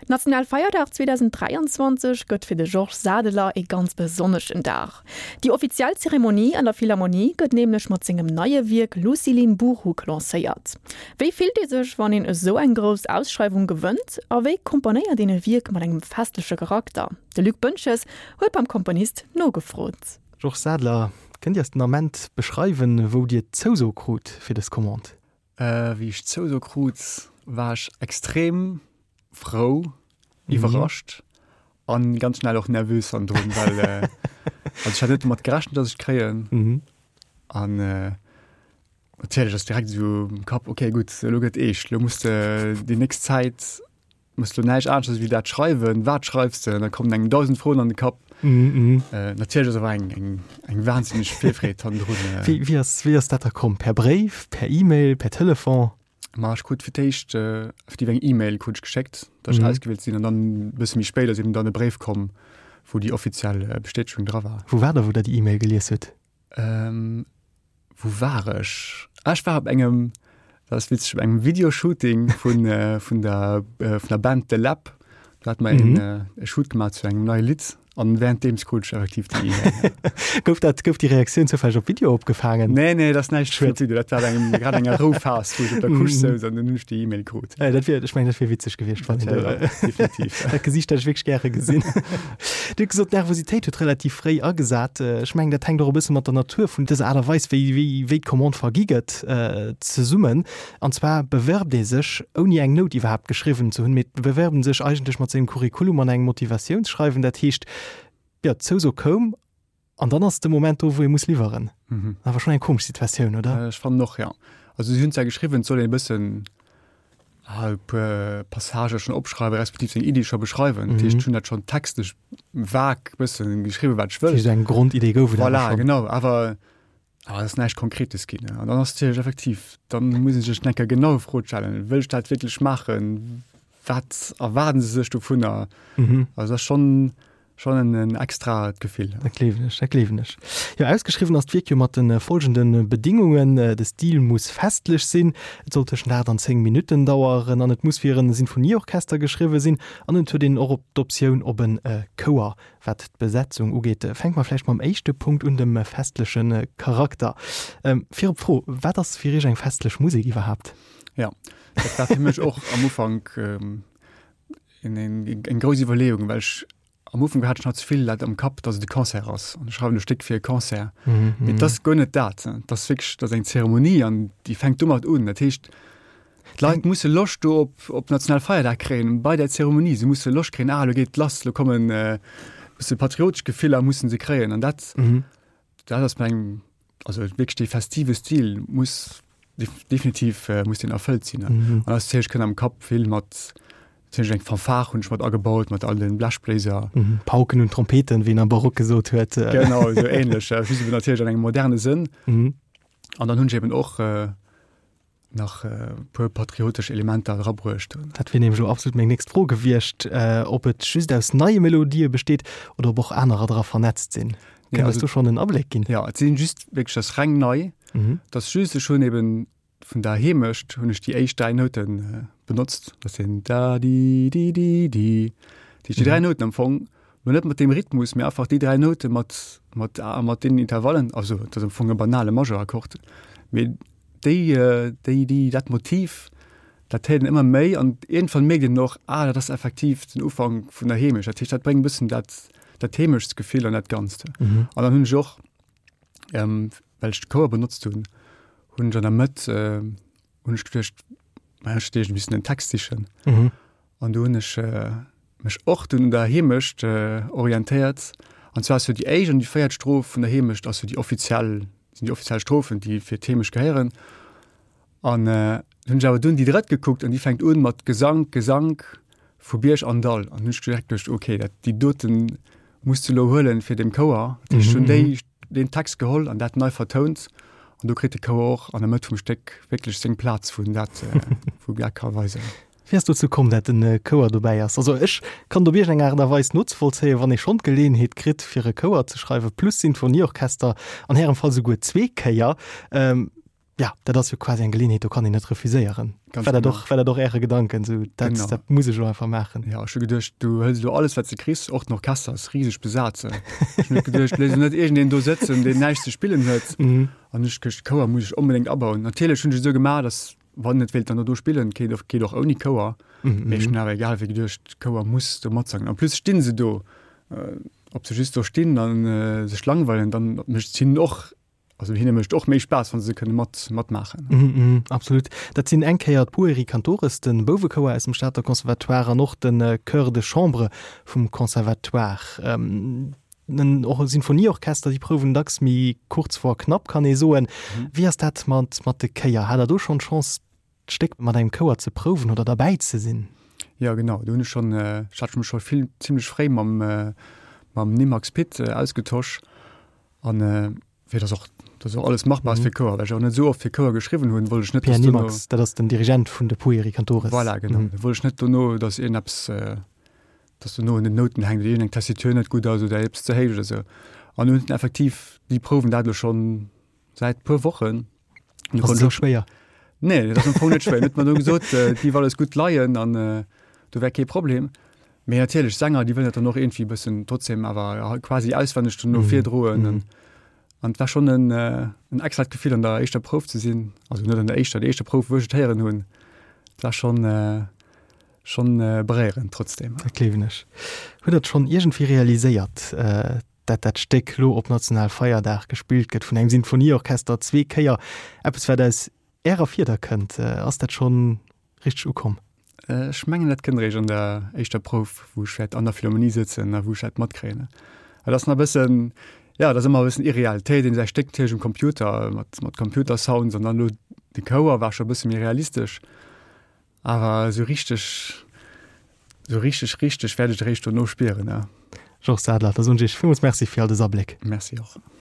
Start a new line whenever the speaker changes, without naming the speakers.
Nationalfeierdag 2023 gëtt fir de Georges Sadeler ee ganz besonneschen Dag. Déi offiziell Zeremonie an der Philharmonie gëtt nämlech mat sengem neie Wierk Lucilin Buruk lancéiert. Wéi fillt ee sech, wann een esou eng grouss Ausschreiwung gewënnt? A wéi komponéiert een e Wierk mat engem festleche Charakter? De Luc Boentges huet beim Komponist nogefrot.
Georges Sadeler, kënnt Dir eis den Ament beschreiwen, wou Dir d'Zouso krut fir dës Commande?
Wéi ech d'Zouso krut, war ech extrem frou, iwwerrascht an ganz schnell och nervös hannendrun, well also ech hat net domat gerechent, dass ech d'kréien. An natierlech ass direkt esou am Kapp, okay gutt, elo gëtt eescht, elo muss de déi nächst Zäit Muss lo näischt aneschters wéi dat schreiwen. Wat schreifs de? An da kommen engem 1000 Froen an de Kapp. Mm -hmm. äh, natierlech ass awer eng, eng, eng wahnsinneg Virfreed hannendrun.
Äh. Wéi, wéi, ass, wéi ass dat da komm? Per Bréif, per E-Mail, per Telefon?
Ma ech krut fir d'éischt äh, effektiv eng E-Mail krut ech geschéckt, dass ech mhm. ausgewielt sinn an dann e bësse méi spéit ass eben dann e Bréif komm, wou déi offiziell äh, Bestätegung dra war.
Wou war der, wou der déi E-Mail gelies hutt?
Ähm, wou war ech? Ah, ech war op engem, dat ass witzeg, op engem Videoshooting vun, äh, vun, der, äh, vun der Band The Lab. Do hat mer mhm. een, äh, e Shoot gemaach zu engem neie Lidd an währenddeems krut ech effektiv déi
E-Mail. gouf dat, gouf déi Reaktioun zoufälleg op Video opgefaangen?
Nee, nee, dat ass näischt vun Video. Dat war engem, grad enger Rouphas, wou ech op der Couche souz an dann hunn ech déi E-Mail krut.
Äh, dat wier, ech mengen, dat wier witzeg gewiescht, wann
een do, definitiv.
Dat Gesiicht hätt ech wierklech gäre gesinn. Dir hutt gesot, d'Nervositéit huet relativ fréi agesat. Ech mengen, dat hänkt och e bësse mat der Natur vun dëser Aart a Weis, wéi, wéi, wéi d'Commande vergi gëtt, zesummen. An zwar bewerbt ee sech, ouni eng Nout iwwerhaapt geschriwwen ze hunn, mee et bewerbt en sech eigentlech mat sengem Curriculum an engem Motivatiounsschreiwen. Dat heescht, jo, d'Zouso koum an dann ass de Moment do, wou ee muss liwweren. Awer schonn eng komesch Situatioun, oder?
Ech fannen och, jo. Also si hunn zwar geschriwwen, et soll een e bëssen e puer Passagë schonn opschreiwen, respektiv seng Iddi scho beschreiwen. Dat heescht, ech hunn dat schonn textlech vag bëssen geschriwwen, wat ech wëll.
Dat heescht, eng Grondidee gouf et
awer schonn. Voilà, genau. Awer awer et ass näischt Konkretes ginn. An dann ass natierlech effektiv, dann muss ee sech eng Kéier genau Fro stellen, Wëll ech dat wierklech maachen? Wat erwaarden se sech dovunner? Also dat ass schonn Schon en en extraet Gefill.
Dat gleewen ech, dat gleewen ech. Jo, ausgeschriwwen ass d'Wierk jo mat de folgende Bedingungen, De Stil muss festlech sinn, et soll tëschent 8 an 10 Minutten daueren an et muss fir e Sinfonieorchester geschriwwe sinn an et huet een och op d'Optioun op e Chouer. Wat d'Besetzung ugeet, fänke mer vläicht mam éischte Punkt un, dem festleche Charakter. Virop d'Fro, Wat ass fir Iech eng festlech Musek iwwerhaapt?
Jo, dat war fir mech och am Ufank Eng grouss Iwwerleeung, well ech am Ufank hat ech nach ze vill dat am Kapp, datt et e Concert ass an ech schreiwen e Stéck fir e Concert. Mee et ass guer net dat. Et ass wierklech, et ass eng Zeremonie an déi fänkt domat un. Dat heescht, d'Leit musse Loscht do op op Nationalfeierdag kréien bei där Zeremonie. Se musse Loscht kréien, ah elo geet et lass, elo kommen e bësse patriotesch Gefiller musse se kréien an dat Dat ass meng, also wierklech dee festive Stil muss definitiv muss deen erfëllt sinn. An ass natierlech kënnt am Kapp vill mat, natierlech eng Fanfare hunn ech mat agebaut, mat all den Blechbléiser.
Pauken und Trompeten, wéi een am Barock gesot huet.
Genau, esou ähnlech, just eben natierlech an engem moderne Sënn. An dann hunn ech eben och nach e puer patriotesch Elementer erabruecht
hunn. Dat wier nämlech elo absolut meng nächst Fro gewiescht, ob et just aus neie Melodië besteet oder ob och anerer dra vernetzt sinn. Kënnt eis do schonn en Abléck ginn?
Jo, et sinn just wierklech, dat ass reng nei. Et ass just, ech hunn eben vun der Heemecht hunn ech déi éischt 3 Noute benotzt. Dat sinn da di di di di. Dat heescht déi 3 Nouten am Fong, mä net mat deem Rhythmus, mä einfach déi 3 Noute mat mat mat deenen Intervallen. Also et ass am Fong e banale Majeurakkord, mee Déi, déi, déi, dat Motiv, dat héiert een ëmmer méi an iergendwann mierkt een och, ah, dat ass effektiv den Ufank vun der Heemecht. Dat heescht, dat bréngt e bëssen dat, dat Heemechtsgefill an dat Ganzt. An dann hunn ech och, well ech de Chouer benotzt hunn, hunn ech an der Mëtt, hunn ech geduecht, ma ech hätt iergendwéi missen en Text sichen. An do hunn ech mech och dunn un der Heemecht orientéiert. An zwar ass jo déi éischt an déi véiert Stroph vun der Heemecht ass jo déi offiziell, sinn déi offiziell Strophen, déi fir d'Heemecht gehéieren. An hunn ech awer dunn déi drëtt gekuckt an déi fänkt un mat Gesank, Gesank vu Bierg an Dall. An hunn ech direkt geduecht, okay, dat déi doten muss de lo huelen fir dem Chouer. Dat heescht, ech hunn déi, deen Text geholl an dat nei vertount. An do kritt de Chouer och an der Mëtt vum Stéck wierklech seng Plaz, wou en dat, wou en dat ka weisen.
Wéi ass dozou komm, dat en Chouer dobäi ass? Also ech kann et op iergend eng Aart a Weis nozevollzéien, wann ee schonn d'Geleeënheet kritt fir e Chouer ze schreiwen, plus Sinfonieorchester, an Ärem Fall souguer zweek Kéier. Ja, dat ass jo quasi eng Geleeënheet, do kann een net refuséieren. Ganz war dat och, war dat och Äre Gedanken, esou dat, genau. dat muss ech elo einfach maachen?
Ja, ech hu geduecht, du hëls elo alles, wat s de kriss, och den Orchester ass riseg besat. Ech hunn net geduecht, léiss elo net iergendeen do sëtzen, deen näischt ze spillen huet. Mhm. An ech geduecht, Chouer muss ech onbedéngt abauen. Natierlech hunn ech et esou gemaach, datt wann et wéilt dann do spillen, geet och, geet och ouni Chouer. Mhm. Mee ech hunn awer egal wéi geduecht, Chouer muss do matsangen. En plus stinn se do, ob se just do stinn a sech langweilen, dann mécht et hinnen och Also hinne mécht och méi Spaass, wann se kënne mat matmaachen.
Mm -hmm, absolut. Dat sinn eng Kéier d'Pueri Cantores, de Bouwechouer aus dem Stater Conservatoire an och de Chœur de Chambre vum Conservatoire. Ähm, och e Sinfonieorchester, déi prouwen dacks méi kurz vor knapp, kann ee soen. Mhm. Wéi ass dat mat, mat de Chéier? Hat Der do schonn d'Chance, d'Stéck mat engem Chouer ze prouwen oder derbäi ze sinn?
Jo, genau. Do hunn ech schonn, ech hat mech scho vill zimmlech fréi mam, mam Nimax Pit ausgetosch. An fir dass och, dass och alles machbar ass fir Chouer, well ech och net esou oft fir Chouer geschriwwen hunn, wollt ech net,
dass dono. Pierre Nimax, dat ass den Dirigent vun de Pueri Cantores.
Voilà, genau. Da wollt ech net dono, dass iergendeppes, dass dono un den Nouten hänkt oder iergendeng Tessitur net gutt ass oder eppes ze héich oder esou. An hunn effektiv, déi prouwen dat elo schonn säit puer Wochen.
Ass et esou schwéier?
Nee, dat ass am Fong net schwéier. Huet mer do gesot, et géif alles gutt leien an do wär kee Problem. Mee natierlech, Sänger, déi wëllen dat dann och iergendwéi e bëssen trotzdem awer quasi auswenneg dono virdroen. An et war schonn en en extrat Gefill an der éischter Prouf ze sinn, also net an der éischter, déi éischter Prouf, wou ech et héieren hunn. Et war schonn schonn beréierend trotzdem.
Dat gleewen ech. Hutt Der et schonn iergendwéi realiséiert, dat dat Stéck lo op Nationalfeierdag gespillt gëtt vun engem Sinfonieorchester, zwee Kéier, eppes wat aus Ärer Fieder kënnt. Ass dat schonn richteg ukomm?
Ech mengen dat kënnt eréischt an der éischter Prouf, wou ech wäert an der Philharmonie sëtzen a wou ech dat matkréien. Dat ass nach e bëssen, jo, dat ass ëmmer e bëssen irreal. Et héiert een säi Stéck natierlech um Computer mat mat Computersounds an dann elo de Chouer war scho e bësse méi realistesch. Awer esou richteg, esou richteg, richteg wäert ech et eréischt dono spieren, ja.
Georges Sadler, da soen ech Iech villmools Merci fir all dës Abléck.
Merci och.